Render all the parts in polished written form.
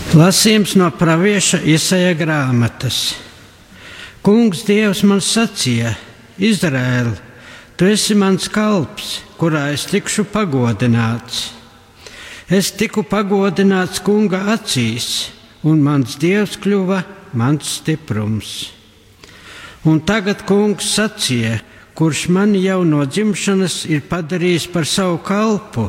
Lasījums no pravieša Isaija grāmatas. Kungs Dievs man sacīja: Izraēl, tu esi mans kalps, kurā es tikšu pagodināts. Es tiku pagodināts Kunga acīs, un mans Dievs kļuva mans stiprums. Un tagad Kungs sacīja, kurš mani jau no dzimšanas ir padarījis par savu kalpu,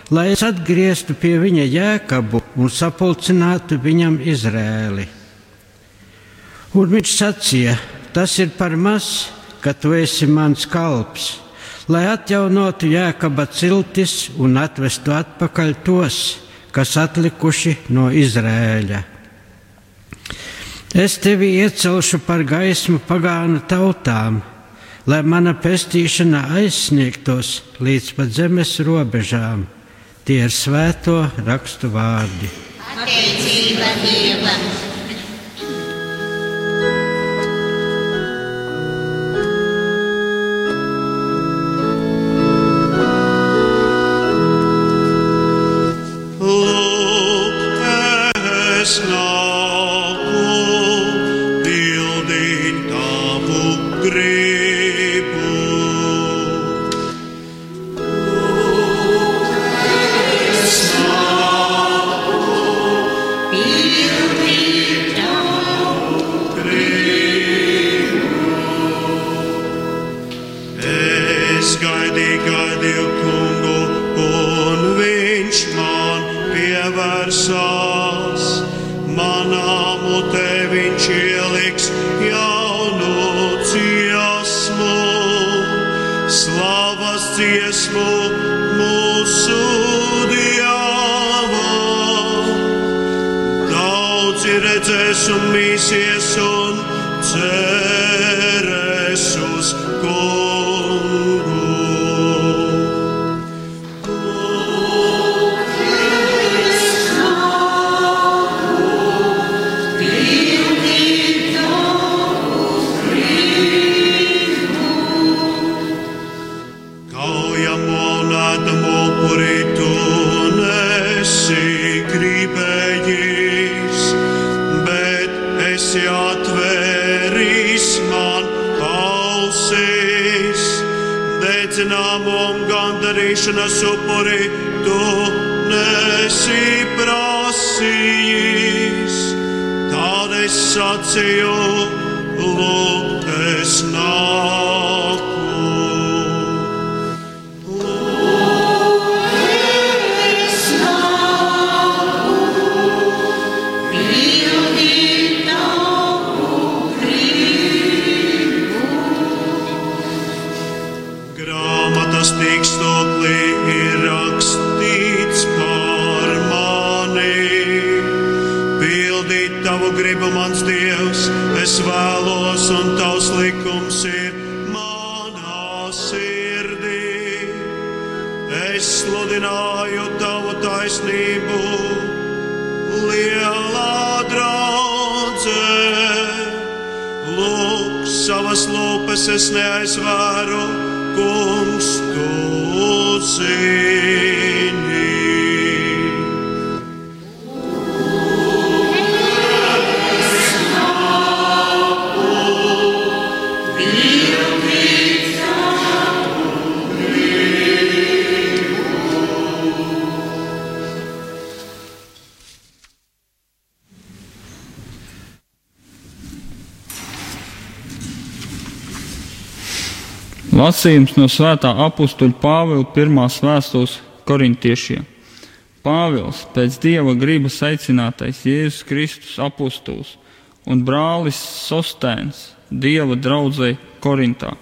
lai es atgrieztu pie viņa Jēkabu un sapulcinātu viņam Izrēli. Un viņš sacīja: tas ir par maz, ka tu esi mans kalps, lai atjaunotu Jēkaba ciltis un atvestu atpakaļ tos, kas atlikuši no Izrēļa. Es tevi iecelšu par gaismu pagānu tautām, lai mana pestīšana aizsniegtos līdz pat zemes robežām. Tie ir svēto rakstu vārdi. Pateicība Dievam! Redzēs un mīsies un cerēs uz Kungu. Kaujamo un ēdamo upuri tu nesi gribējis, esi atvēris man ausis, dedzināmu un gandarīšanas upuri tu nesi prasījis. Tad es sacīju: lūk, es nāku. Tikstoklī ir rakstīts par mani. Pildīt tavu gribu, mans Dievs, es vēlos, un tavs likums ir manā sirdī. Es sludināju tavu taisnību, lielā draudzē. Lūk, savas lūpas es neaizvēru, Kungs, tu zini. Lasījums no svētā apustuļa Pāvila pirmās vēstules korintiešiem. Pāvils, pēc Dieva gribas aicinātais Jēzus Kristus apustuls un brālis Sostēns Dieva draudzei Korintā.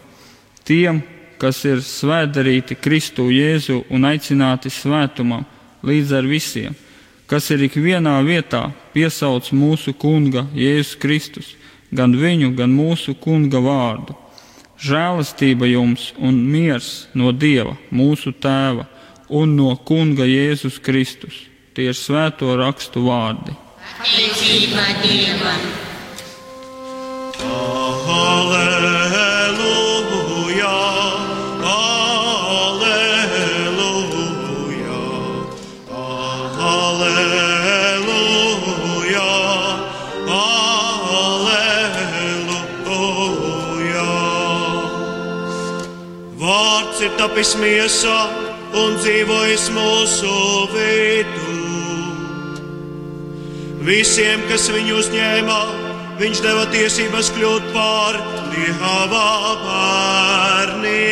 Tiem, kas ir svētdarīti Kristu Jēzu un aicināti svētumam līdz ar visiem, kas ir ikvienā vietā piesauc mūsu Kunga Jēzus Kristus, gan viņu, gan mūsu Kunga vārdu. Žēlastība jums un miers no Dieva, mūsu Tēva, un no Kunga Jēzus Kristus. Tie ir svēto rakstu vārdi. Pateicība Dievam! Alleluja, alleluja, alleluja. tapis miesā un dzīvojis mūsu vidū. Visiem, kas viņu uzņēma, viņš deva tiesības kļūt par Dieva bērniem.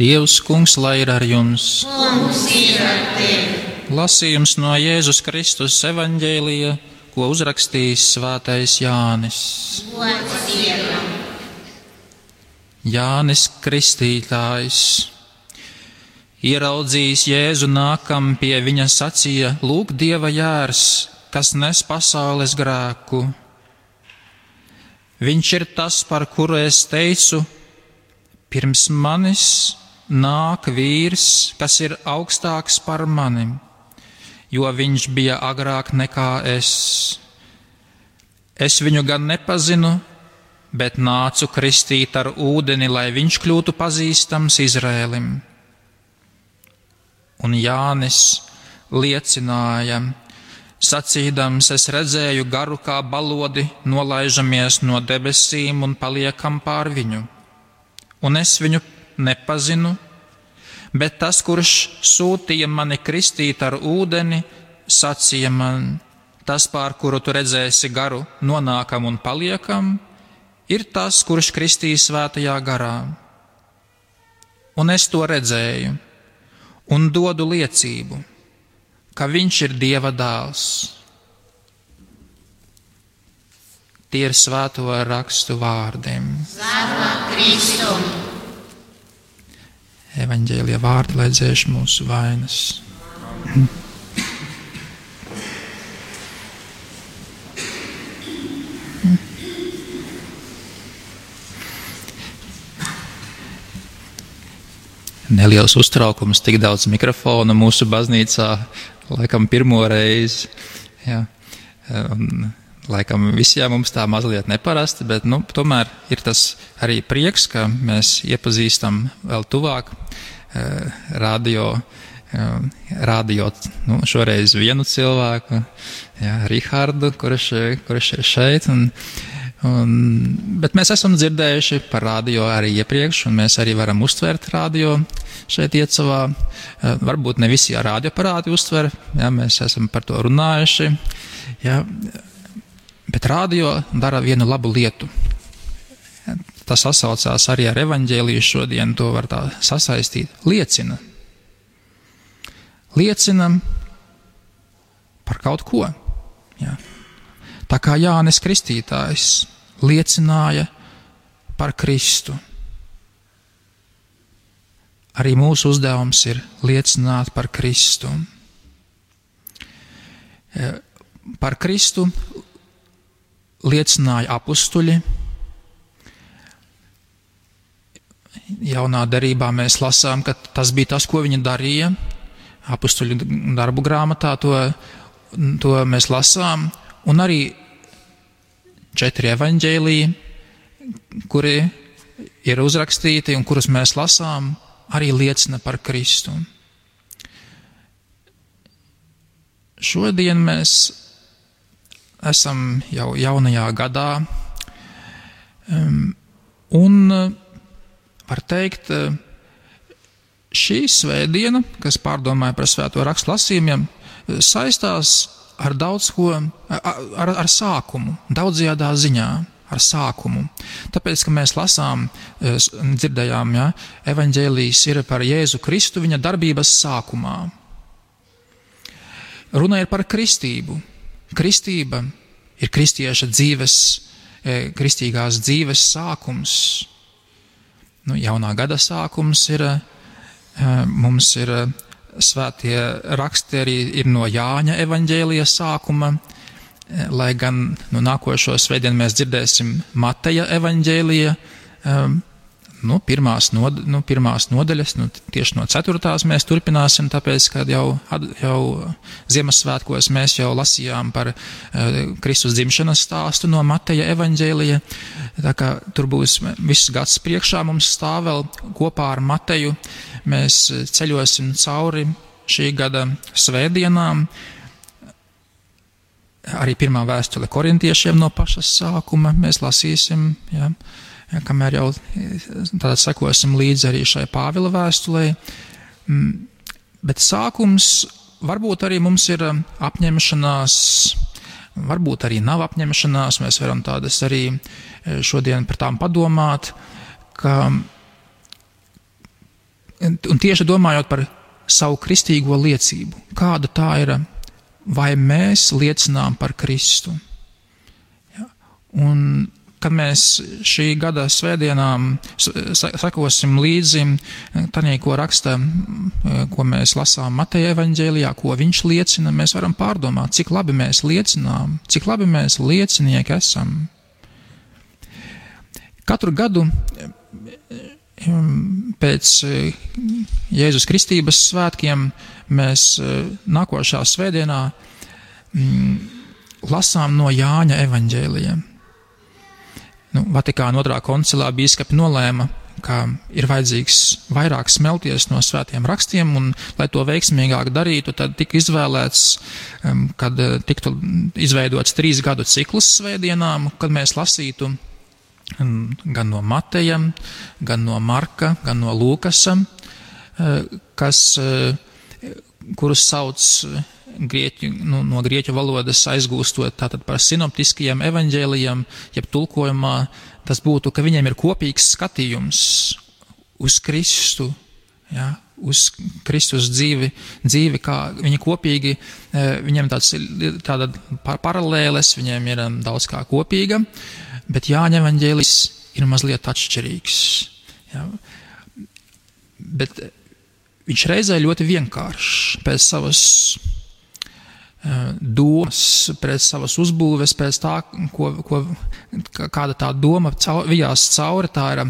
Dievs, Kungs, lai ir ar jums. Kungs ir ar tevi. Lasījums no Jēzus Kristus evaņģēlija, ko uzrakstījis svētais Jānis. Gods Dievam. Jānis Kristītājs. Ieraudzījis Jēzu nākam pie viņa sacīja: lūk, Dieva jērs, kas nes pasaules grēku. Viņš ir tas, par kuru es teicu: pirms manis nāk vīrs, kas ir augstāks par mani, jo viņš bija agrāk nekā es. Es viņu gan nepazinu, bet nācu kristīt ar ūdeni, lai viņš kļūtu pazīstams Izrēlim. Un Jānis liecināja, sacīdams: es redzēju garu kā balodi, nolaižamies no debesīm un paliekam pār viņu. Un es viņu nepazinu, bet tas, kurš sūtīja mani kristīt ar ūdeni, sacīja man: tas, pār kuru tu redzēsi garu, nonākam un paliekam, ir tas, kurš kristīs svētajā garā. Un es to redzēju un dodu liecību, ka viņš ir Dieva dēls. Tie ir svēto rakstu vārdiem. Slava Kristum. Evaņģēlija vārdi, lai dzēš mūsu vainas. Neliels uztraukums, tik daudz mikrofonu mūsu baznīcā, laikam pirmo reizi. Jā. Laikam visiem mums tā mazliet neparasti, bet tomēr ir tas arī prieks, ka mēs iepazīstam vēl tuvāk radio šoreiz vienu cilvēku, Rihardu, kurš ir šeit. Bet mēs esam dzirdējuši par radio arī iepriekš, un mēs arī varam uztvert radio šeit Iecavā. Varbūt ne visi radioaparāti uztver, mēs esam par to runājuši. Bet radio dara vienu labu lietu. Tas sasaucās arī ar evaņģēliju šodien, to var tā sasaistīt. Liecina par kaut ko. Jā. Tā kā Jānis Kristītājs liecināja par Kristu. Arī mūsu uzdevums ir liecināt par Kristu. Par Kristu liecināja apustuļi. Jaunā derībā mēs lasām, ka tas bija tas, ko viņi darīja. Apustuļu darbu grāmatā to mēs lasām. Un arī 4 evaņģēliji, kuri ir uzrakstīti un kurus mēs lasām, arī liecina par Kristu. Šodien mēs esam jau jaunajā gadā, un var teikt, šī svētdiena, kas pārdomāja par svēto rakstu lasījumiem, saistās ar daudz ko, ar sākumu, daudzajādā ziņā, ar sākumu. Tāpēc, ka mēs lasām, dzirdējām, evaņģēlijas ir par Jēzu Kristu viņa darbības sākumā. Runa ir par kristību. Kristība ir kristieša dzīves, kristīgās dzīves sākums. Jaunā gada sākums ir, mums ir svētie raksti arī ir no Jāņa evaņģēlija sākuma, lai gan nākošo svētdienu mēs dzirdēsim Mateja evaņģēlija pirmās nodaļas, tieši no 4. mēs turpināsim, tāpēc, ka jau Ziemassvētkos mēs jau lasījām par Kristus dzimšanas stāstu no Mateja evaņģēlija, tā kā tur būs viss gads priekšā mums stāv vēl kopā ar Mateju, mēs ceļosim cauri šī gada svētdienām, arī pirmā vēstule korintiešiem no paša sākuma mēs lasīsim, kamēr jau tātad sekosim līdzi arī šai Pāvila vēstulei. Bet sākums varbūt arī mums ir apņemšanās, varbūt arī nav apņemšanās, mēs varam tādas arī šodien par tām padomāt, un tieši domājot par savu kristīgo liecību, kāda tā ir, vai mēs liecinām par Kristu. Un kad mēs šī gada svētdienām sekosim līdzi tanī, ko raksta, ko mēs lasām Mateja evaņģēlijā, ko viņš liecina, mēs varam pārdomāt, cik labi mēs liecinām, cik labi mēs liecinieki esam. Katru gadu pēc Jēzus Kristības svētkiem mēs nākošā svētdienā lasām no Jāņa evaņģēlija. Vatikāna 2. koncilā bīskapi nolēma, ka ir vajadzīgs vairāk smelties no svētiem rakstiem, un, lai to veiksmīgāk darītu, tad tika izvēlēts, kad tiktu izveidots 3 gadu cikls svētdienām, kad mēs lasītu gan no Mateja, gan no Marka, gan no Lūkasa, kurus sauc no grieķu valodas aizgūstot tātad par sinoptiskajiem evaņģēlijiem, jeb tulkojumā, tas būtu, ka viņiem ir kopīgs skatījums uz Kristu, uz Kristus dzīvi, kā viņi kopīgi, viņiem tāda paralēles, viņiem ir daudz kā kopīga, bet Jāņa evaņģēlijs ir mazliet atšķirīgs. Bet viņš reizē ļoti vienkāršs pēc savas domas, pēc savas uzbūves, pēc tā, kāda tā doma vijās cauri, tā ir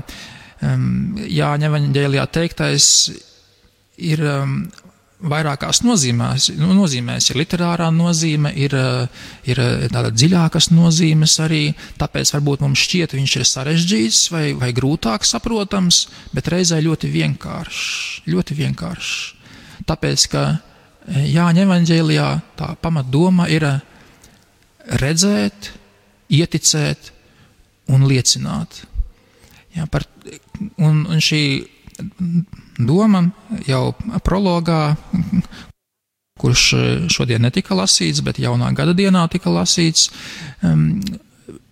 Jāņa evaņģēlijā teiktais ir vairākās nozīmēs, ir literārā nozīme, ir tāda dziļākas nozīmes arī, tāpēc varbūt mums šķiet, viņš ir sarežģīts vai grūtāk saprotams, bet reizē ļoti vienkāršs. Tāpēc, ka Jāņa evaņģēlijā tā pamatdoma ir redzēt, ieticēt un liecināt. Un šī doma jau prologā, kurš šodien netika lasīts, bet jaunā gada dienā tika lasīts,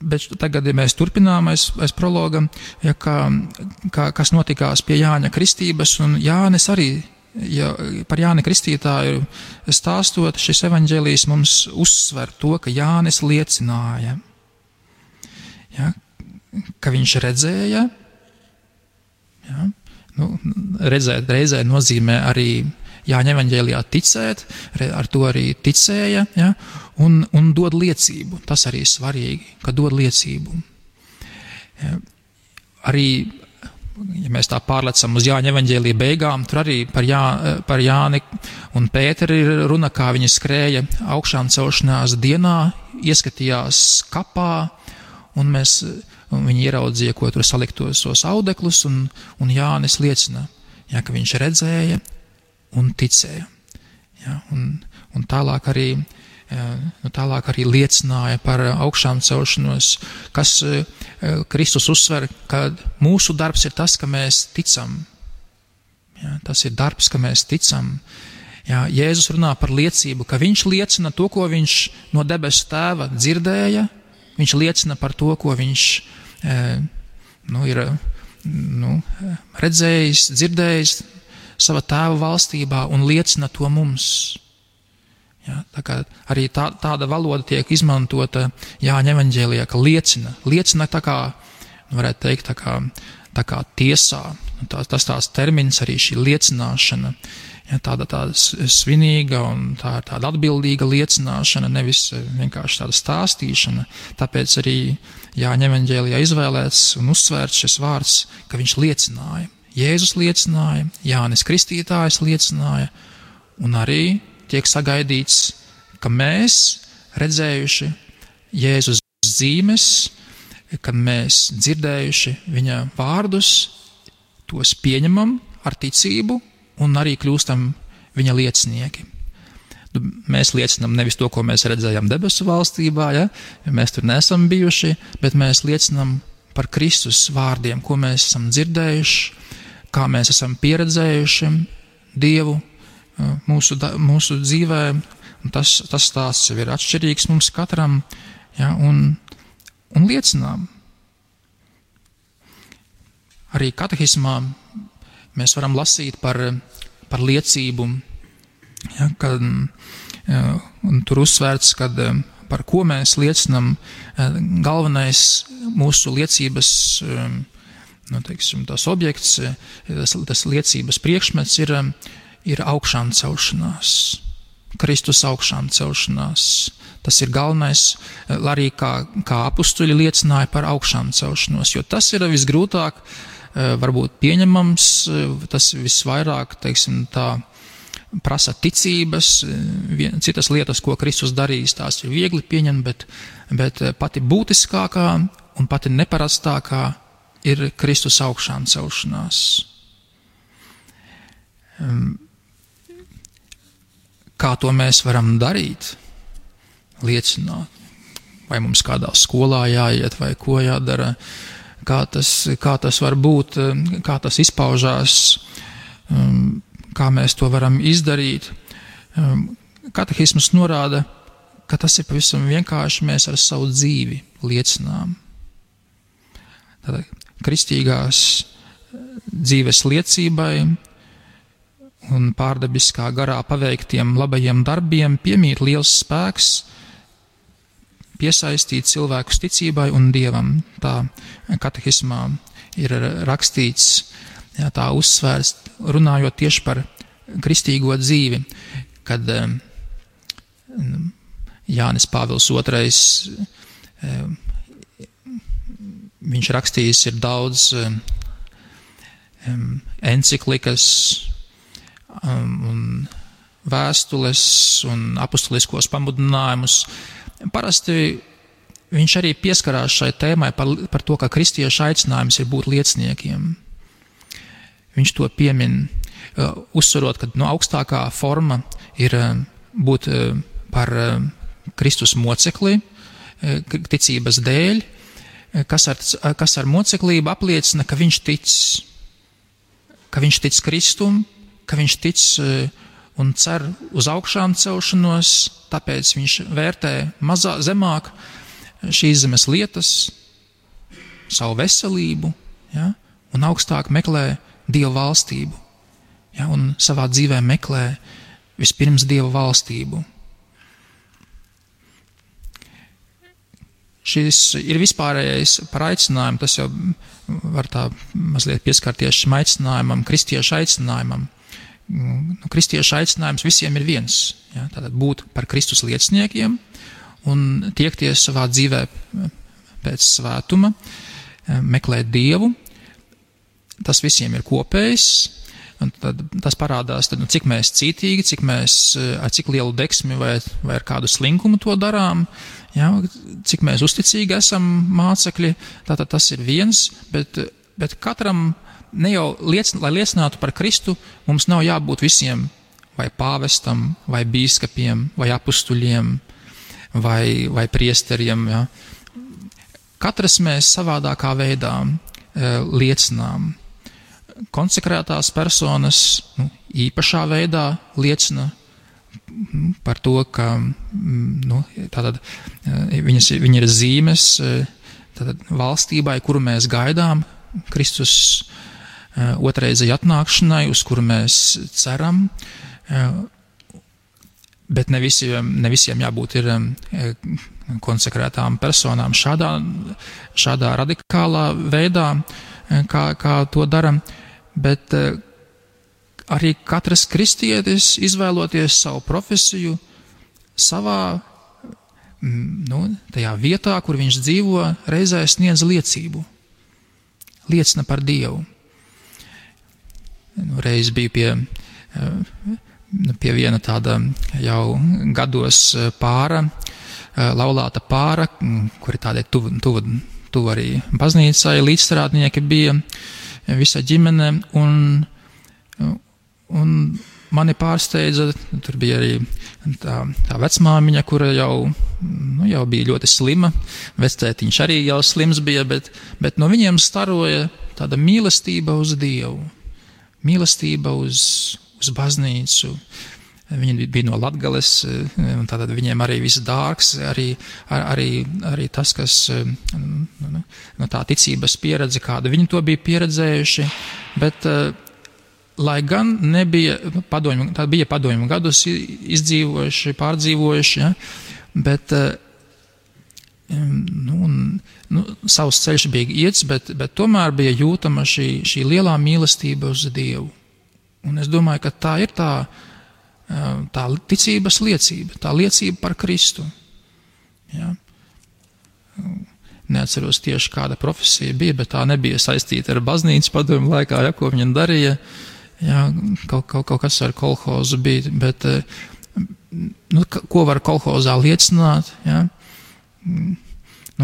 bet tagad, ja mēs turpinām aiz prologa, kas notikās pie Jāņa kristības, un Jānis arī, par Jāni Kristītāju stāstot, šis evaņģēlijs mums uzsver to, ka Jānis liecināja, ka viņš redzēja, redzēt reizē nozīmē arī Jāņa evaņģēlijā ticēt, ar to arī ticēja, un dod liecību. Tas arī svarīgi, ka dod liecību. Arī, ja mēs tā pārlecam uz Jāņa evaņģēlija beigām, tur arī par Jāni un Pēteri ir runa, kā viņi skrēja augšām celšanās dienā, ieskatījās kapā, un viņi ieraudzīja, ko tur saliktos tos audeklus, un Jānis liecina, ka viņš redzēja un ticēja. Un tālāk arī liecināja par augšām celšanos, kas Kristus uzsver, ka mūsu darbs ir tas, ka mēs ticam. Tas ir darbs, ka mēs ticam. Jēzus runā par liecību, ka viņš liecina to, ko viņš no debesu tēva dzirdēja, viņš liecina par to, ko viņš ir redzējis, dzirdējis savā tēva valstībā un liecina to mums. Tā kā arī tāda valoda tiek izmantota Jāņa evaņģēlijā, ka liecina tā kā, varētu teikt, tā kā tiesā. Tas tās termins arī šī liecināšana. Ja, tāda svinīga un tāda atbildīga liecināšana, nevis vienkārši tāda stāstīšana. Tāpēc arī Jāņa evaņģēlijā izvēlēts un uzsvērts šis vārds, ka viņš liecināja. Jēzus liecināja, Jānis Kristītājs liecināja, un arī tiek sagaidīts, ka mēs, redzējuši Jēzus zīmes, kad mēs dzirdējuši viņa vārdus, tos pieņemam ar ticību un arī kļūstam viņa liecinieki. Mēs liecinām nevis to, ko mēs redzējām debesu valstībā, ja mēs tur neesam bijuši, bet mēs liecinām par Kristus vārdiem, ko mēs esam dzirdējuši, kā mēs esam pieredzējuši Dievu mūsu dzīvē. Tas stāsts jau ir atšķirīgs mums katram, ja, un liecinām. Arī katehismā mēs varam lasīt par liecību, ja, kad, un tur uzsvērts, kad par ko mēs liecinam, galvenais mūsu liecības, tas objekts, tas liecības priekšmets ir augšām celšanās, Kristus augšām celšanās. Tas ir galvenais, arī kā apustuļi liecināja par augšām celšanos, jo tas ir visgrūtāk varbūt pieņemams, tas visvairāk, tā prasa ticības, citas lietas, ko Kristus darīs, tās ir viegli pieņemt, bet pati būtiskākā un pati neparastākā ir Kristus augšām celšanās. Kā to mēs varam darīt? Liecināt. Vai mums kādā skolā jāiet, vai ko jādara? Kā tas var būt, kā tas izpaužās, kā mēs to varam izdarīt. Katehisms norāda, ka tas ir pavisam vienkārši, mēs ar savu dzīvi liecinām. Tātad kristīgās dzīves liecībai un pārdabiskā garā paveiktiem labajiem darbiem piemīt liels spēks piesaistīt cilvēkus ticībai un Dievam. Tā katehismā ir rakstīts, jā, tā uzsvērts, runājot tieši par kristīgo dzīvi, kad Jānis Pāvils II, viņš rakstījis ir daudz enciklikas un vēstules un apustuliskos pamudinājumus. Parasti viņš arī pieskarās šai tēmai par to, ka kristiešu aicinājums ir būt lieciniekiem. Viņš to piemin, uzsverot, ka augstākā forma ir būt par Kristus mocekli, ticības dēļ, kas ar moceklību apliecina, ka viņš tic Kristum, ka viņš tic un cer uz augšām celšanos, tāpēc viņš vērtē zemāk šīs zemes lietas, savu veselību, ja, un augstāk meklē Dieva valstību, ja, un savā dzīvē meklē vispirms Dieva valstību. Šis ir vispārējais par aicinājumu, tas jau var tā mazliet pieskarties šim aicinājumam, kristiešu aicinājumam. Kristiešu aicinājums visiem ir viens, ja, tātad būt par Kristus lieciniekiem un tiekties savā dzīvē pēc svētuma, meklēt Dievu. Tas visiem ir kopējs, un tad tas parādās, tad, cik mēs cītīgi, ar cik lielu deksmi vai ar kādu slinkumu to darām, ja, cik mēs uzticīgi esam mācekļi, tātad tas ir viens, bet katram ne jau lai liecinātu par Kristu, mums nav jābūt visiem vai pāvestam, vai bīskapiem, vai apustuļiem, vai priesteriem. Ja. Katrs mēs savādākā veidā liecinām. Konsekrētās personas īpašā veidā liecina par to, ka tātad, viņi ir zīmes tātad, valstībai, kuru mēs gaidām, Kristus otrreizēji atnākšanai, uz kuru mēs ceram, bet ne visiem jābūt ir konsekrētām personām šādā radikālā veidā, kā to dara, bet arī katrs kristietis, izvēloties savu profesiju, savā tajā vietā, kur viņš dzīvo, reizē sniedz liecību. Liecina par Dievu. Reiz bija pie viena tāda jau gados pāra, laulāta pāra, kuri tādai tuvu arī baznīcai, līdzstrādnieki bija, visa ģimene, un mani pārsteidza, tur bija arī tā vecmāmiņa, kura jau bija ļoti slima, vectētiņš arī jau slims bija, bet no viņiem staroja tāda mīlestība uz Dievu, mīlestība uz baznīcu. Viņi bija no Latgales, un tātad viņiem arī viss dārgs, arī tas, kas no tā ticības pieredze, kāda viņi to bija pieredzējuši, bet lai gan nebija padomju gadus izdzīvojuši, pārdzīvojuši, ja, bet savs ceļš bija iets, bet tomēr bija jūtama šī lielā mīlestība uz Dievu. Un es domāju, ka tā ir tā ticības liecība, tā liecība par Kristu. Ja. Neatceros tieši kāda profesija bija, bet tā nebija saistīta ar baznīcas padomju laikā, ja, ko viņa darīja. Ja, kaut kas ar kolhozu bija, bet ko var kolhozā liecināt? Ja?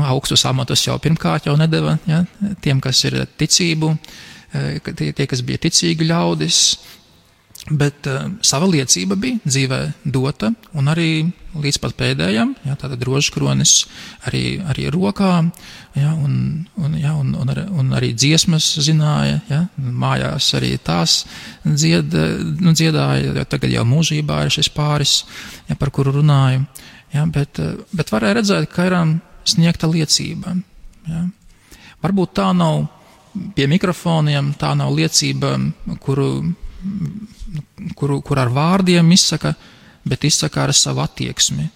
Augstus amatus jau pirmkārt jau nedeva, ja? Tiem, kas ir ticību, tie, kas bija ticīgi ļaudis, bet sava liecība bija dzīvē dota, un arī līdz pat pēdējam, ja, tātad rožkronis arī rokā, ja, un arī dziesmas zināja, ja, mājās arī tās dziedāja, jo tagad jau mūžībā ir šis pāris, ja, par kuru runāju, ja, bet varēja redzēt, ka ir sniegta liecība. Ja. Varbūt tā nav pie mikrofoniem, tā nav liecība, kur ar vārdiem izsaka, bet izsaka ar savu attieksmi.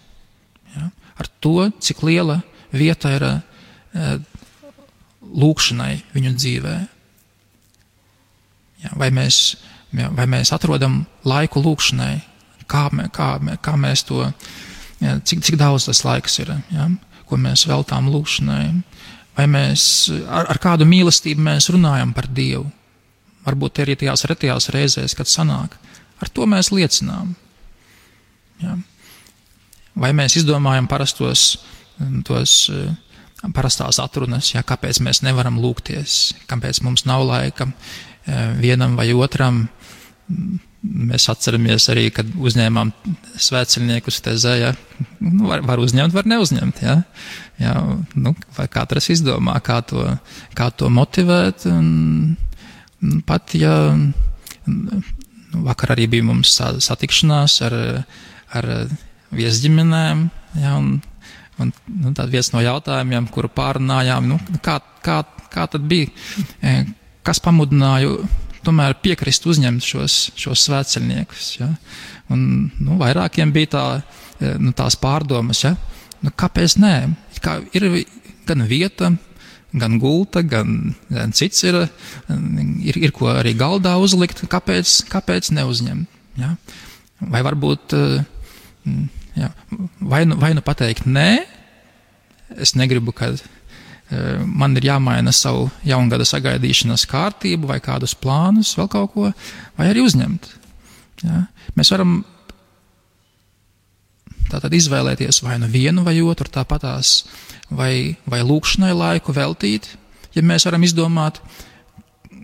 Ja? Ar to, cik liela vieta ir lūkšanai viņu dzīvē. Ja? Vai mēs atrodam laiku lūkšanai, kā mēs to, ja, cik daudz tas laiks ir, ja? Ko mēs veltām lūkšanai, vai mēs ar kādu mīlestību mēs runājam par Dievu. Varbūt arī tajās retajās reizēs, kad sanāk. Ar to mēs liecinām. Ja. Vai mēs izdomājam parastās atrunas, ja, kāpēc mēs nevaram lūgties, kāpēc mums nav laika vienam vai otram. Mēs atceramies arī, kad uzņēmām svētceļniekus tezē, ja, var uzņemt, var neuzņemt. Ja. Ja, vai katrs izdomā, kā to motivēt. Pat, ja vakar arī bija mums satikšanās ar viesģimenēm, ja, un tad viens no jautājumiem, kuru pārunājām, kā tad bija, kas pamudināja tomēr piekrist uzņemt šos svētceļniekus. Ja? Un vairākiem bija tās pārdomas, ja? Kāpēc nē? Ir gan vieta, gan gulta, gan cits ir ko arī galdā uzlikt, kāpēc neuzņemt. Ja? Vai varbūt, ja, vai nu pateikt nē, es negribu, kad man ir jāmaina savu jaungada sagaidīšanas kārtību vai kādus plānus, vēl kaut ko, vai arī uzņemt. Ja? Mēs varam tātad izvēlēties vai nu vienu vai otru, tāpatās vai lūkšanai laiku veltīt, ja mēs varam izdomāt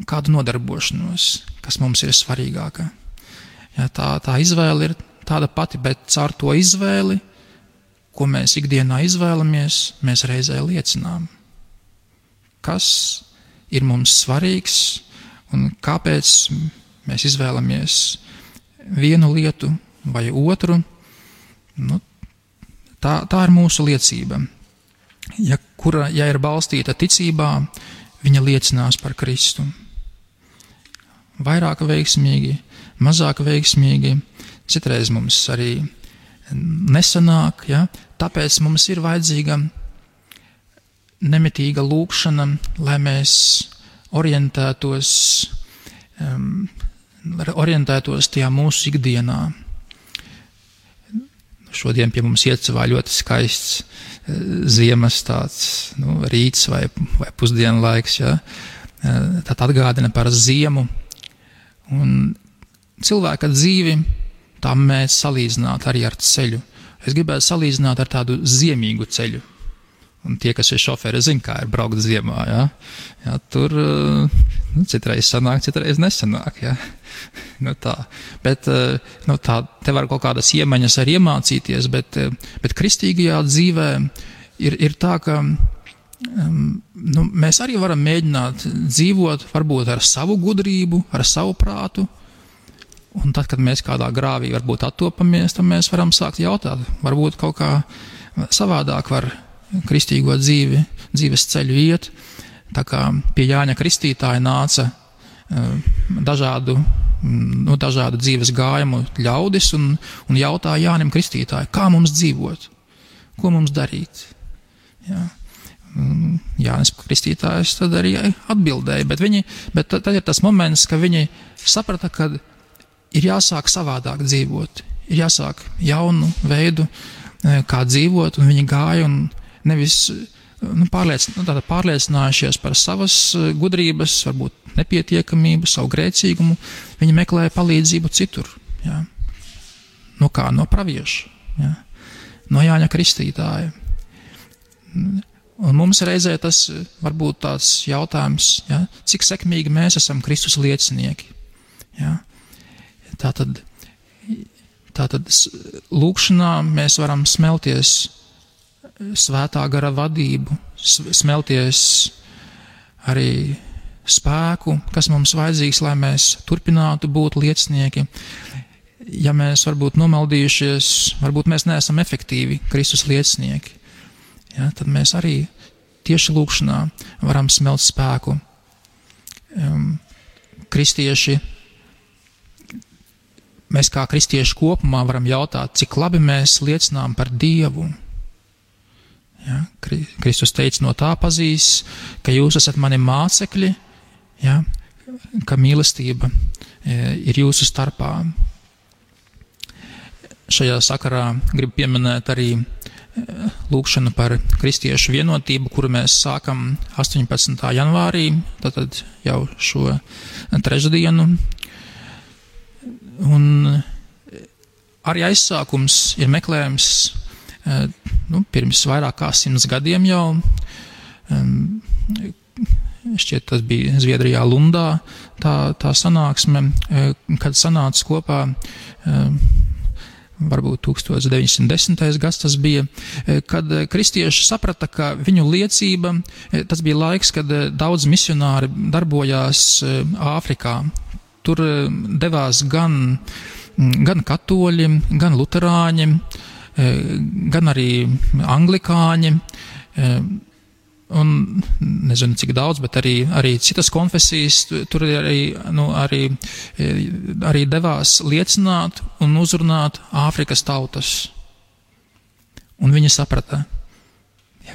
kādu nodarbošanos, kas mums ir svarīgāka. Ja, tā izvēle ir tāda pati, bet caur to izvēli, ko mēs ikdienā izvēlamies, mēs reizē liecinām. Kas ir mums svarīgs un kāpēc mēs izvēlamies vienu lietu vai otru. Tā ir mūsu liecība. Ja ir balstīta ticībā, viņa liecinās par Kristu. Vairāk veiksmīgi, mazāk veiksmīgi, citreiz mums arī nesanāk, ja? Tāpēc mums ir vajadzīga nemitīga lūkšana, lai mēs orientētos orientētos tajā mūsu ikdienā. Šodien pie mums iecavā ļoti skaists ziemas tāds rīts vai pusdienlaiks, ja? Tad atgādina par ziemu. Un cilvēka dzīvi tā mēs salīdzināt arī ar ceļu. Es gribētu salīdzināt ar tādu ziemīgu ceļu. Un tie, kas ir šoferi, zina, kā ir braukt ziemā. Ja? Ja, tur citreiz sanāk, citreiz nesanāk. Ja? Tā. Bet tā, te var kaut kādas iemaņas arī iemācīties, bet kristīgajā dzīvē ir tā, ka mēs arī varam mēģināt dzīvot varbūt ar savu gudrību, ar savu prātu. Un tad, kad mēs kādā grāvī varbūt attopamies, tad mēs varam sākt jautāt, varbūt kaut kā savādāk var kristīgo dzīves ceļu iet. Tā kā pie Jāņa Kristītāja nāca dažādu dzīves gājumu ļaudis un jautāja Jānim Kristītāju, kā mums dzīvot, ko mums darīt. Jā. Jānis Kristītājs tad arī atbildēja, bet tad ir tas moments, ka viņi saprata, ka ir jāsāk savādāk dzīvot, ir jāsāk jaunu veidu, kā dzīvot, un viņi gāja un nevis pārliecinājušies par savas gudrības, varbūt nepietiekamību, savu grēcīgumu, viņi meklēja palīdzību citur. Ja? No kā? No pravieša, ja? No Jāņa Kristītāja. Un mums reizē tas varbūt tāds jautājums, ja? Cik sekmīgi mēs esam Kristus liecinieki. Ja? Tātad lūkšanā mēs varam smelties svētā gara vadību, smelties arī spēku, kas mums vajadzīgs, lai mēs turpinātu būt liecinieki. Ja mēs varbūt nomaldījušies, varbūt mēs neesam efektīvi Kristus liecinieki, ja, tad mēs arī tieši lūkšanā varam smelt spēku. Mēs kā kristieši kopumā varam jautāt, cik labi mēs liecinām par Dievu. Ja, Kristus teica, no tā pazīs, ka jūs esat mani mācekļi, ja, ka mīlestība ir jūsu starpā. Šajā sakarā gribu pieminēt arī lūkšanu par kristiešu vienotību, kuru mēs sākam 18. janvārī, tātad jau šo trešdienu. Un arī aizsākums ir meklējums pirms vairāk kā 100 gadiem jau. Šķiet, tas bija Zviedrijā Lundā tā sanāksme, kad sanāca kopā varbūt 1910. gads tas bija, kad kristieši saprata, ka viņu liecība, tas bija laiks, kad daudz misionāri darbojās Āfrikā. Tur devās gan katoļi, gan luterāņi, gan arī anglikāņi, un nezinu cik daudz, bet arī citas konfesijas tur arī devās liecināt un uzrunāt Āfrikas tautas. Un viņi saprata,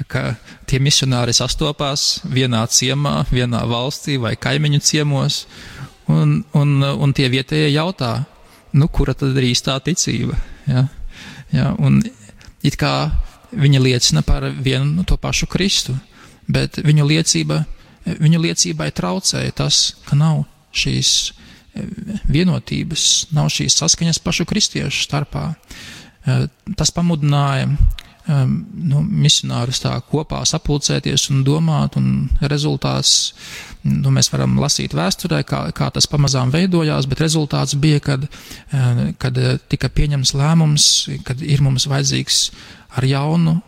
ka tie misionāri sastopās vienā ciemā, vienā valstī vai kaimiņu ciemos, un tie vietējie jautā, kura tad ir īstā ticība? Ja? Ja, un it kā viņi liecina par vienu to pašu Kristu, bet viņu liecībai traucēja tas, ka nav šīs vienotības, nav šīs saskaņas pašu kristiešu starpā. Tas pamudināja misionārus tā kopā sapulcēties un domāt, un rezultāts, mēs varam lasīt vēsturē, kā tas pamazām veidojās, bet rezultāts bija, kad tika pieņems lēmums, kad ir mums vajadzīgs ar jaunu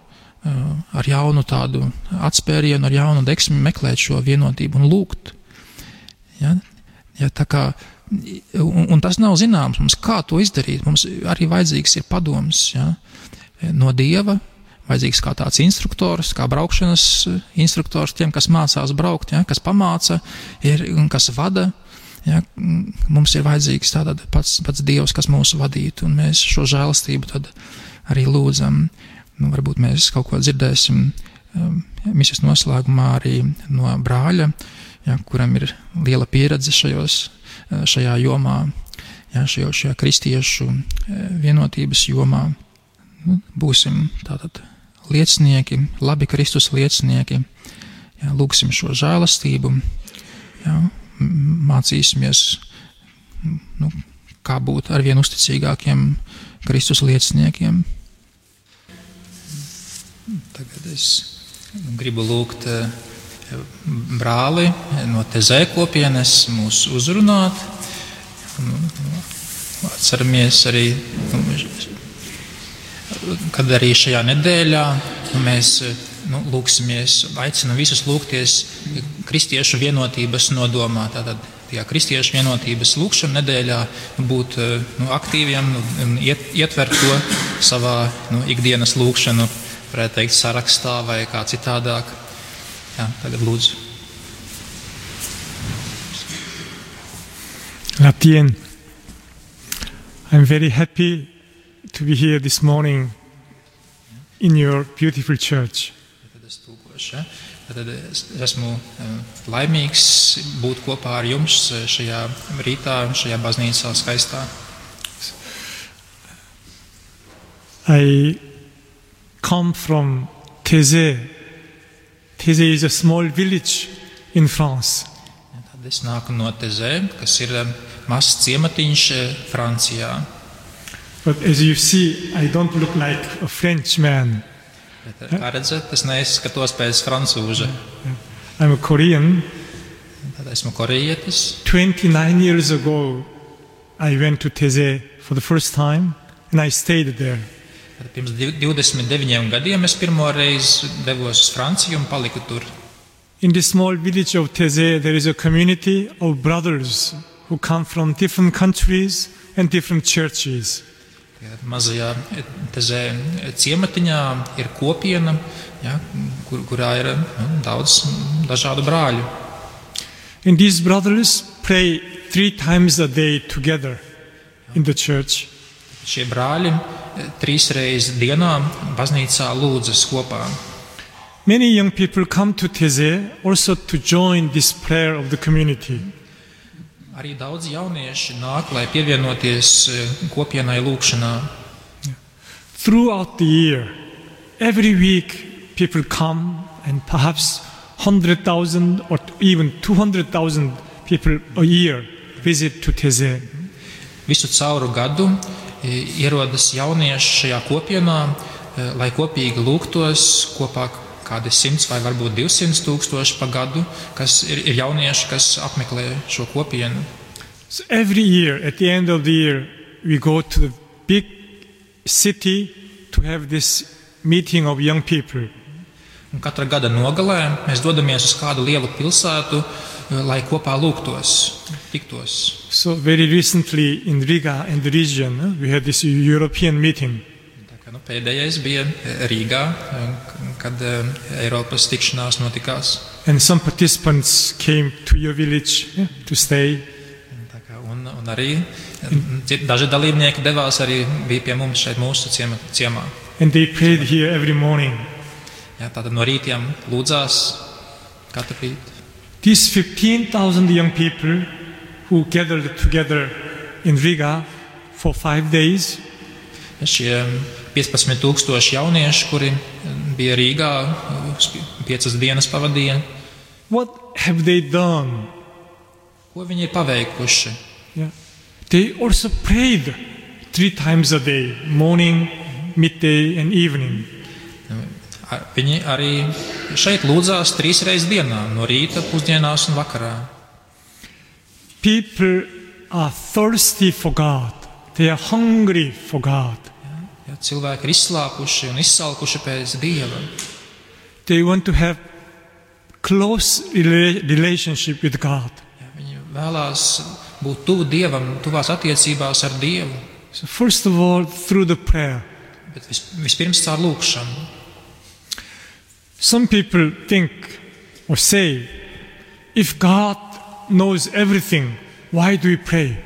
tādu atspērienu, ar jaunu deksmi meklēt šo vienotību un lūgt. Ja, tā kā, un tas nav zināms mums, kā to izdarīt. Mums arī vajadzīgs ir padoms, ja, no Dieva, vajadzīgs kā tāds instruktors, kā braukšanas instruktors tiem, kas mācās braukt, ja, kas pamāca un kas vada. Ja, mums ir vajadzīgs tātad pats Dievs, kas mūs vadītu, un mēs šo žēlastību tad arī lūdzam. Varbūt mēs kaut ko dzirdēsim misijas noslēgumā arī no brāļa, ja, kuram ir liela pieredze šajos šajā jomā, jā, šajā kristiešu vienotības jomā. Būsim tātad liecinieki, labi Kristus liecinieki, jā, lūksim šo žēlastību, jā, mācīsimies, kā būt arvien uzticīgākiem Kristus lieciniekiem. Tagad es gribu lūgt brāli no Tezē kopienes mūs uzrunāt. Atceramies arī, kad arī šajā nedēļā mēs lūksimies, aicinam visus lūgties kristiešu vienotības nodomā. Tātad tajā kristiešu vienotības lūkšana nedēļā būt aktīviem un ietvert to savā ikdienas lūkšanu, varētu teikt, sarakstā vai kā citādāk. Jā, tagad lūdzu. Labdien! I'm very happy to be here this morning in your beautiful church. Tad es tūkošu, ja? Tad es esmu laimīgs būt kopā ar jums šajā rītā, šajā baznīcā skaistā. I come from Thésée. Thésée is a small village in France. Tad es nāku no Tezē, kas ir mazs ciematiņš Francijā. But as you see, I don't look like a Frenchman. Bet, kā redzat, es neizskatos pēc francūža. I'm a Korean. Tad esmu korejietis. 29 years ago, I went to Thésée for the first time and I stayed there. Tad pirms 29 gadiem es pirmo reizi devos uz Franciju un paliku tur. In this small village of Thésée, there is a community of brothers who come from different countries and different churches. Mazajā Tezē ciematiņā ir kopiena, ja, kurā ir daudz dažādu brāļu. And these brothers pray 3 times a day together in the church. Šie brāļi 3 reizes dienā baznīcā lūdzas kopā. Many young people come to Thésée also to join this prayer of the community. Arī daudz jaunieši nāk, lai pievienoties kopienai lūkšanā. Throughout the year, every week people come and perhaps 100,000 or even 200,000 people a year visit to Thésée. Visu cauru gadu ierodas jaunieši šajā kopienā, lai kopīgi lūgtos kopā kādi 100 vai varbūt 200 tūkstoši pa gadu, kas ir jaunieši, kas apmeklē šo kopienu. So every year, at the end of the year, we go to the big city to have this meeting of young people. Un katra gada nogalē mēs dodamies uz kādu lielu pilsētu, lai kopā lūgtos, tiktos. So very recently in Riga and the region, we had this European meeting. Pēdējais bija Rīgā, kad Eiropas tikšanās notikās. And some participants came to your village to stay. Un arī daži dalībnieki devās arī bija pie mums šeit mūsu ciemā. And they prayed here every morning. Jā, tātad no rītiem lūdzās katru rītu. These 15,000 young people who gathered together in Riga for 5 days. Šie 15,000 jaunieši, kuri bija Rīgā, 5 dienas pavadīja. What have they done? Ko viņi ir paveikuši? Yeah. They also prayed 3 times a day, morning, midday and evening. Viņi arī šeit lūdzās 3 reizes dienā, no rīta, pusdienās un vakarā. People are thirsty for God. They are hungry for God. Ja, cilvēki ir izslāpuši un izsalkuši pēc Dieva. They want to have close relationship with God. Ja, viņi vēlās būt tuvu Dievam, tuvās attiecībās ar Dievu. So first of all, through the prayer. Bet vispirms caur lūkšanu. Some people think or say, if God knows everything, why do we pray?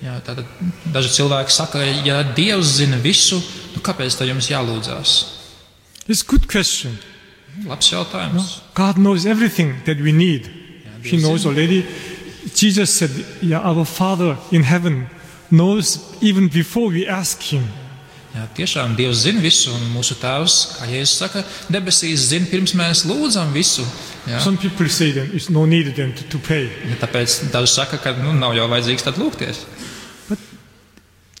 Jā, tātad daži cilvēki saka, ja Dievs zina visu, kāpēc tad jums jālūdzās? It's a good question. Labs jautājums. No? God knows everything that we need. He knows already Jesus said, yeah, our Father in heaven knows even before we ask him. Jā, tiešām Dievs zina visu, un mūsu Tēvs, kā Jēzus saka, debesīs zina, pirms mēs lūdzam visu. Jā. Some people say that it's no need then to pray. Ja, tāpēc daži saka, ka nav jau vajadzīgs tad lūgties. But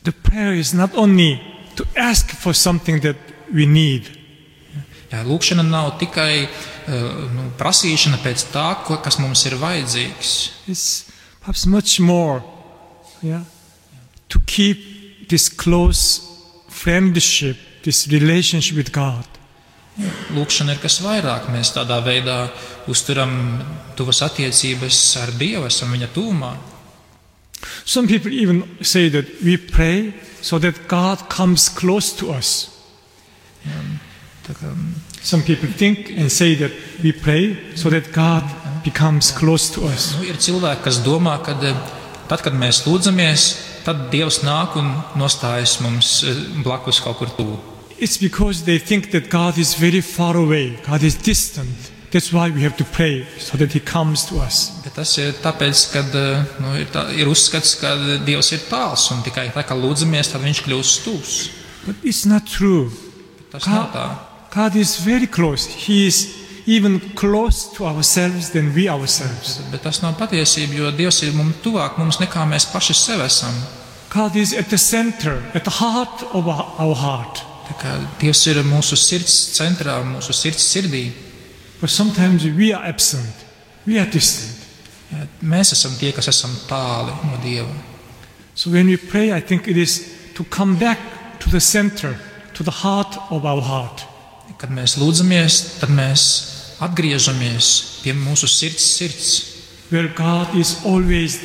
the prayer is not only to ask for something that we need. Jā, lūkšana nav tikai prasīšana pēc tā, kas mums ir vajadzīgs. It's perhaps much more, yeah, to keep this close friendship, this relationship with God. Lūkšana ir kas vairāk. Mēs tādā veidā uzturam tuvas attiecības ar Dievu, esam viņa tuvumā. Some people even say that we pray so that God comes close to us. Some people think and say that we pray so that God becomes close to us. Ir cilvēki, kas domā, ka tad, kad mēs lūdzamies, tad Dievs nāk un nostājas mums blakus kaut kur tuvu. It's because they think that God is very far away, God is distant. That's why we have to pray so that He comes to us. Bet tas ir tāpēc, ka ir uzskats, ka Dievs ir tāls un tikai tā, kā lūdzamies, tad Viņš kļūst tuvs. But it's not true. Tas nav tā. God is very close. He is even close to ourselves than we ourselves. Bet tas nav patiesība, jo Dievs ir mums tuvāk mums nekā mēs paši sev esam. God is at the center, at the heart of our heart. Tā kā Dievs ir mūsu sirds centrā, mūsu sirds sirdī. But sometimes we are absent. We are distant. Jā, mēs esam tie, kas esam tāli no Dieva. So when we pray, I think it is to come back to the center, to the heart of our heart. Kad mēs lūdzamies, tad mēs atgriežamies pie mūsu sirds. Where God is always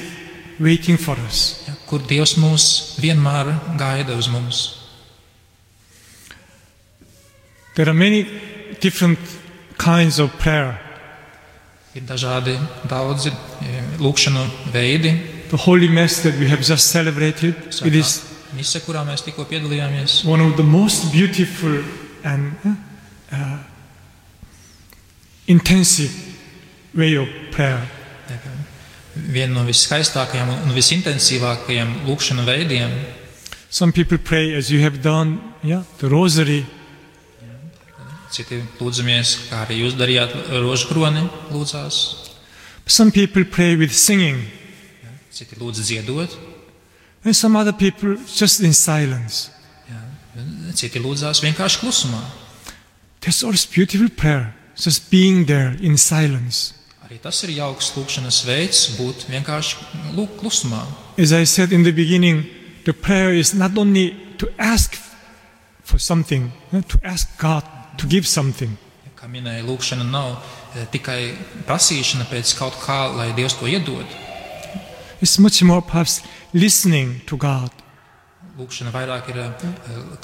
waiting for us. Ja, kur Dievs mūs vienmēr gaida uz mums. There are many different kinds of prayer. Ir dažādi daudzi lūkšanu veidi. The Holy Mass that we have just celebrated, it is Mise, kurā mēs tikko piedalījāmies. one of the most beautiful and intensive way of prayer. Viena no viskaistākajām un visintensīvākajiem lūkšanu veidiem. Some people pray as you have done, the rosary. Citi lūdzamies, kā arī jūs darījāt, rožu kroni lūdzās. Some people pray with singing. Citi lūdz dziedot. And some other people just in silence. Citi lūdzās vienkārši klusumā. That's also beautiful prayer, just being there in silence. Arī tas ir jauks lūkšanas veids, būt vienkārši klusumā. As I said in the beginning, the prayer is not only to ask for something, to ask God to give something. Kā minēja, lūkšana nav tikai prasīšana pēc kaut kā, lai Dievs to iedod. It's much more perhaps listening to God. Lūkšana vairāk ir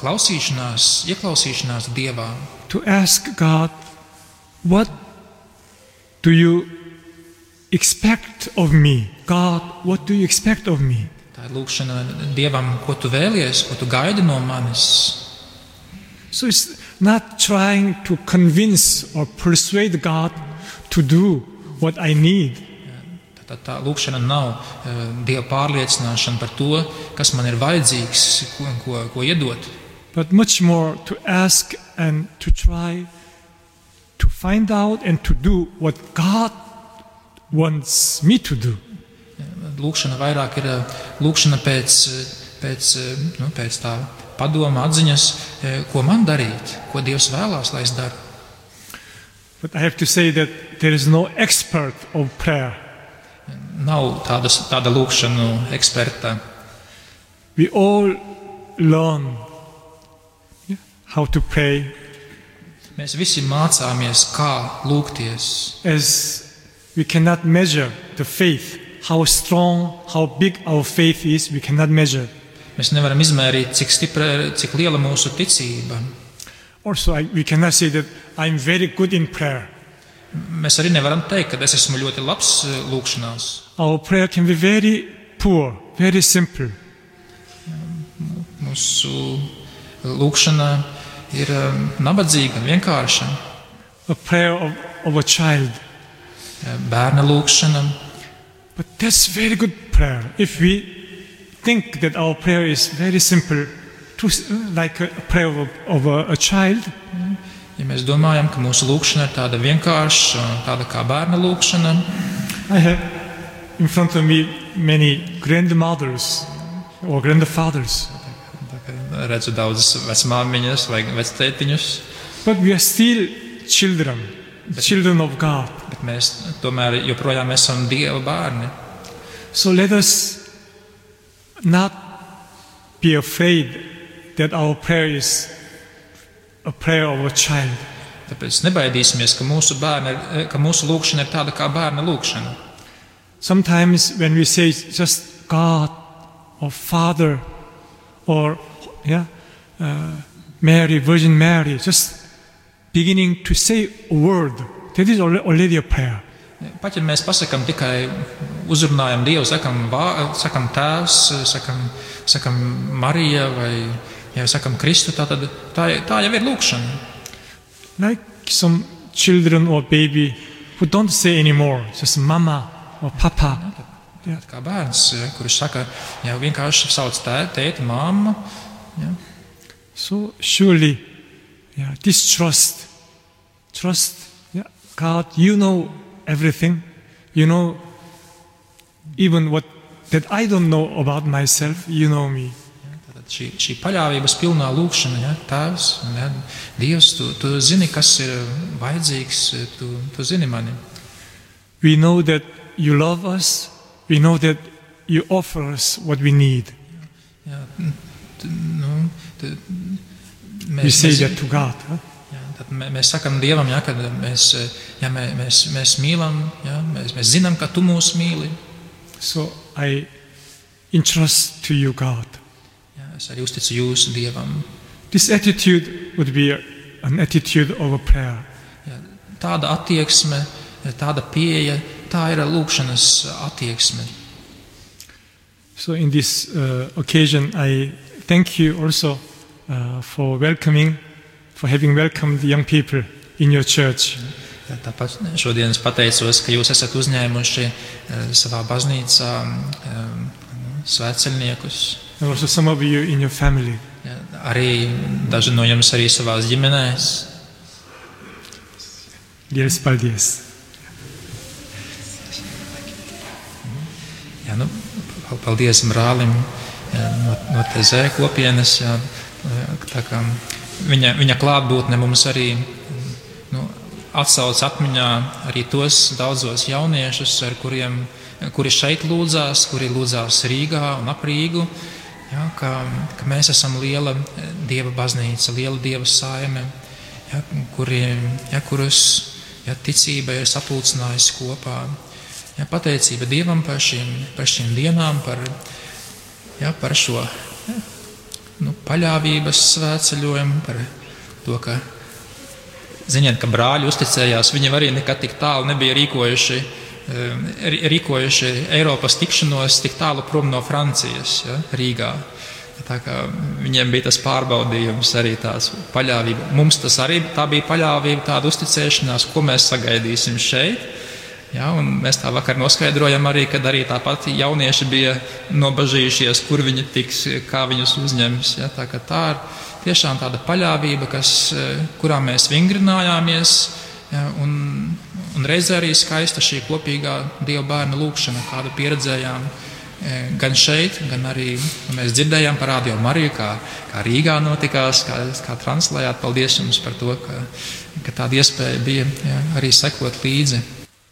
klausīšanās, ieklausīšanās Dievā. To ask God, what do you expect of me? God, what do you expect of me? Tā ir lūkšana Dievam, ko tu vēlies, ko tu gaidi no manis. So it's not trying to convince or persuade God to do what I need. Tā lūkšana nav Dieva pārliecināšana par to, kas man ir vajadzīgs, ko iedot. But much more to ask and to try to find out and to do what God wants me to do. Lūkšana vairāk ir lūkšana pēc tā padoma atziņas, ko man darīt, ko Dievs vēlās, lai es daru. But I have to say that there is no expert of prayer. Nav tāda lūkšanu eksperta. We all learn how to pray. Mēs visi mācāmies, kā lūgties. As we cannot measure the faith, how strong, how big our faith is, we cannot measure. Mēs nevaram izmērīt, cik liela mūsu ticība. Also, we cannot say that I'm very good in prayer. Mēs arī nevaram teikt, ka es esmu ļoti labs lūkšanās. Our prayer can be very poor, very simple. Mūsu lūkšana ir nabadzīga, vienkārša. A prayer of a child. Bērna lūkšana. But that's very good prayer. If we think that our prayer is very simple, like a prayer of a child, Ja mēs domājam, ka mūsu lūkšana ir tāda vienkārša, tāda kā bērna lūkšana, I have in front of me many grandmothers or grandfathers, redzu daudzas vecmāmiņas vai vectētiņus, but we are still children of God. bet mēs tomēr joprojām esam Dieva bērni. So let us not be afraid that our prayer is a prayer of a child. Tāpēc nebaidīsimies, ka mūsu lūkšana ir tāda kā bērna lūkšana. Sometimes when we say just God or Father or Mary, Virgin Mary, just beginning to say a word, that is already a prayer. Pat ja mēs pasakam tikai uzrunājam Dievu, sakam Tēvs, sakam Marija vai sakam Kristu, tā jau ir lūkšana. Like some children or baby who don't say anymore, just mama or papa. Kā bērns, kurš saka, vienkārši sauc tēti, mamma. Ja. So surely, this trust, God, you know everything. You know even what that I don't know about myself, you know me. Šī paļāvības pilnā lūkšana, Tēvs, Dievs, tu zini, kas ir vajadzīgs, tu zini mani. We know that you love us, we know that you offer us what we need. We say that to God. Tad mēs sakam Dievam, kad mēs mīlam, mēs zinām, ka tu mūs mīli. So I entrust to you, God. Es arī uzticu jūsu Dievam. This attitude would be an attitude of a prayer. Tāda attieksme, tāda pieeja, tā ir lūkšanas attieksme. So in this occasion, I thank you also for having welcomed the young people in your church. Tāpat šodien es pateicos, ka jūs esat uzņēmuši savā baznīcā svētceļniekus. And also some of you in your family. Arī daži no jums arī savās ģimenēs. Liels paldies. Paldies brālim no TZ kopienas. Viņa klātbūtne mums arī atsauc atmiņā arī tos daudzos jauniešus, kuri šeit lūdzās, kuri lūdzās Rīgā un ap Rīgu. Ka mēs esam liela Dieva baznīca, liela Dieva saime, kurus ticība ir sapulcinājusi kopā. Pateicība Dievam par šīm dienām, par šo paļāvības svētceļojumu, par to, ka ziniet, ka brāļi uzticējās, viņi arī nekad tik tālu nebija rīkojuši Eiropas tikšanos tik tālu prom no Francijas, Rīgā. Tā kā viņiem bija tas pārbaudījums, arī tās paļāvība. Mums tas arī tā bija paļāvība, tāda uzticēšanās, ko mēs sagaidīsim šeit. Un mēs tā vakar noskaidrojam arī, kad arī tāpat jaunieši bija nobažījušies, kur viņi tiks, kā viņus uzņems. Tā kā tā ir tiešām tāda paļāvība, kurā mēs vingrinājāmies, un reizē arī skaista šī kopīgā Dieva bērna lūkšana, kādu pieredzējām gan šeit, gan arī mēs dzirdējām par Radio Mariju, kā Rīgā notikās, kā translējāt. Paldies jums par to, ka tāda iespēja bija arī sekot līdzi.